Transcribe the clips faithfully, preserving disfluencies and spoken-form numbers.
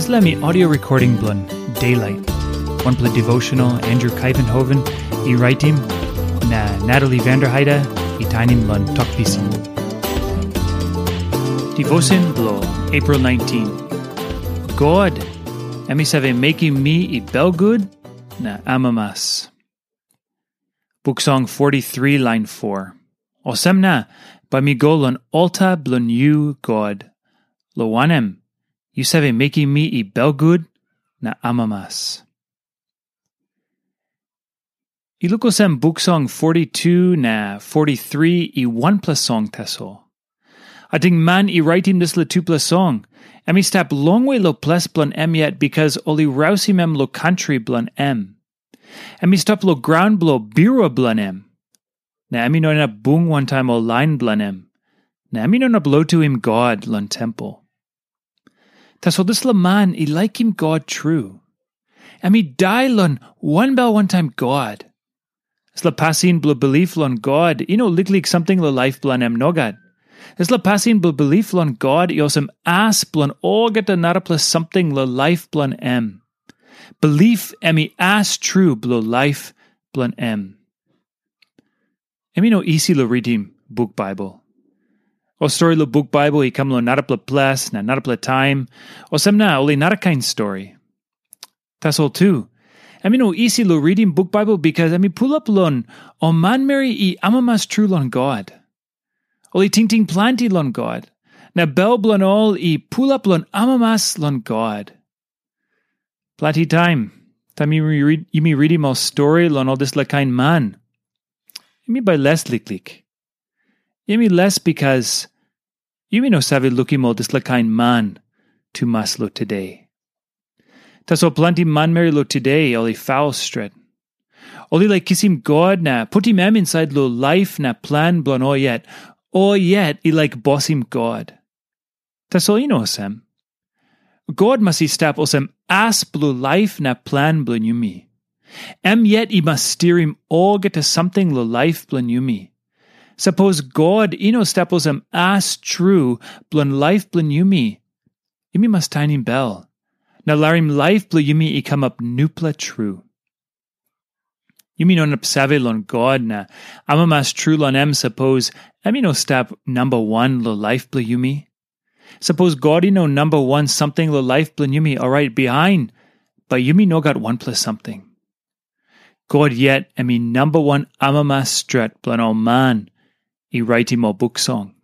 Dispela mi audio recording bilong Daylight, wanpela devotional Andrew Kaivenhoven i raitim, na Natalie Vanderheide i tainim long Tok Pisin. Devotion bilong April nineteen. God, em i save mekim mi i belgut na amamas. Buk Song forty-three lain four. Olsem na, bai mi go long alta bilong yu, God, long wanem, yu save mekim mi i belgut na amamas. I luk olsem Buk Song forty-two na forty-three i wanpela song tasol. Ating man i raitim dispela tupela song, em i stap longwe long ples bilong em yet, bikas ol i rausim em long kantri bilong em. Em i stap long graun bilong birua bilong em, na em i no inap bung wantaim ol lain bilong em, na em i no inap lotuim God long tempel. Tasol dispela man i laikim God tru. Em i dai long wanbel wantaim God. Dispela pasin bilong bilip long God i no liklik samting long laip bilong em, nogat. Dispela pasin bilong bilip long God i olsem as bilong olgeta narapela samting long laip bilong em. Bilip em i as tru bilong laip bilong em. Em i no isi long ritim buk Baibel. Ol stori long buk Baibel i kam long narapela ples na narapela taim, olsem na ol i narakain stori. Tasol tu, em i no isi long ritim buk Baibel, bikas em i pulap long ol manmeri i amamas tru long God. Ol i tingting planti long God, na bel bilong ol i pulap long amamas long God. Planti taim, taim yumi rid-, yumi ritim ol stori long ol dispela kain man, yumi bai les liklik. Yumi les bikas yumi no save lukim ol dispela kain man tumas long today. Tasol planti manmeri long today ol i faul stret. Ol i laik kisim God na putim em insait long laip na plan bilong ol yet. Ol yet i laik bosim God. Tasol i no olsem. God mas i stap olsem as bilong laip na plan bilong yumi. Em yet i mas stirim olgeta samting long laip bilong yumi. Sapos God i no stap olsem as tru bilong laip bilong yumi, yumi mas tainim bel, na larim laip bilong yumi i kamap nupela tru. Yumi no inap save long God na amamas tru long em, sapos em i no stap namba wan long laip bilong yumi. Sapos God i no namba wan samting long laip bilong yumi, orait bihain, bai yumi no gat wanpela samting. God yet em i namba wan amamas stret bilong ol man i raitim ol buk song.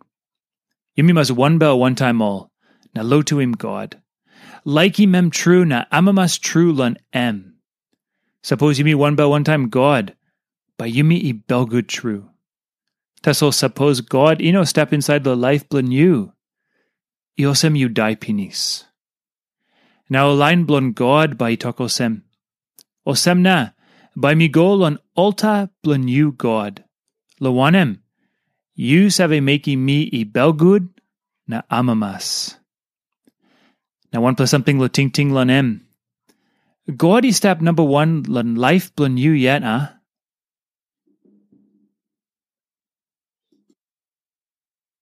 Yumi mas wanbel wantaim ol, na lotuim God. Laikim em tru na amamas tru long em. Sapos yumi wanbel wantaim God, bai yumi i belgut tru. Tasol sapos God i no stap insait long laip bilong yu, i olsem yu dai pinis. Na ol lain bilong God bai i tok olsem, "Olsem na, bai mi go long alta bilong yu, God, long wanem, yu save mekim mi i belgut na amamas." Na wanpela samting long tingting long em. God i stap namba wan long laip bilong yu yet, a?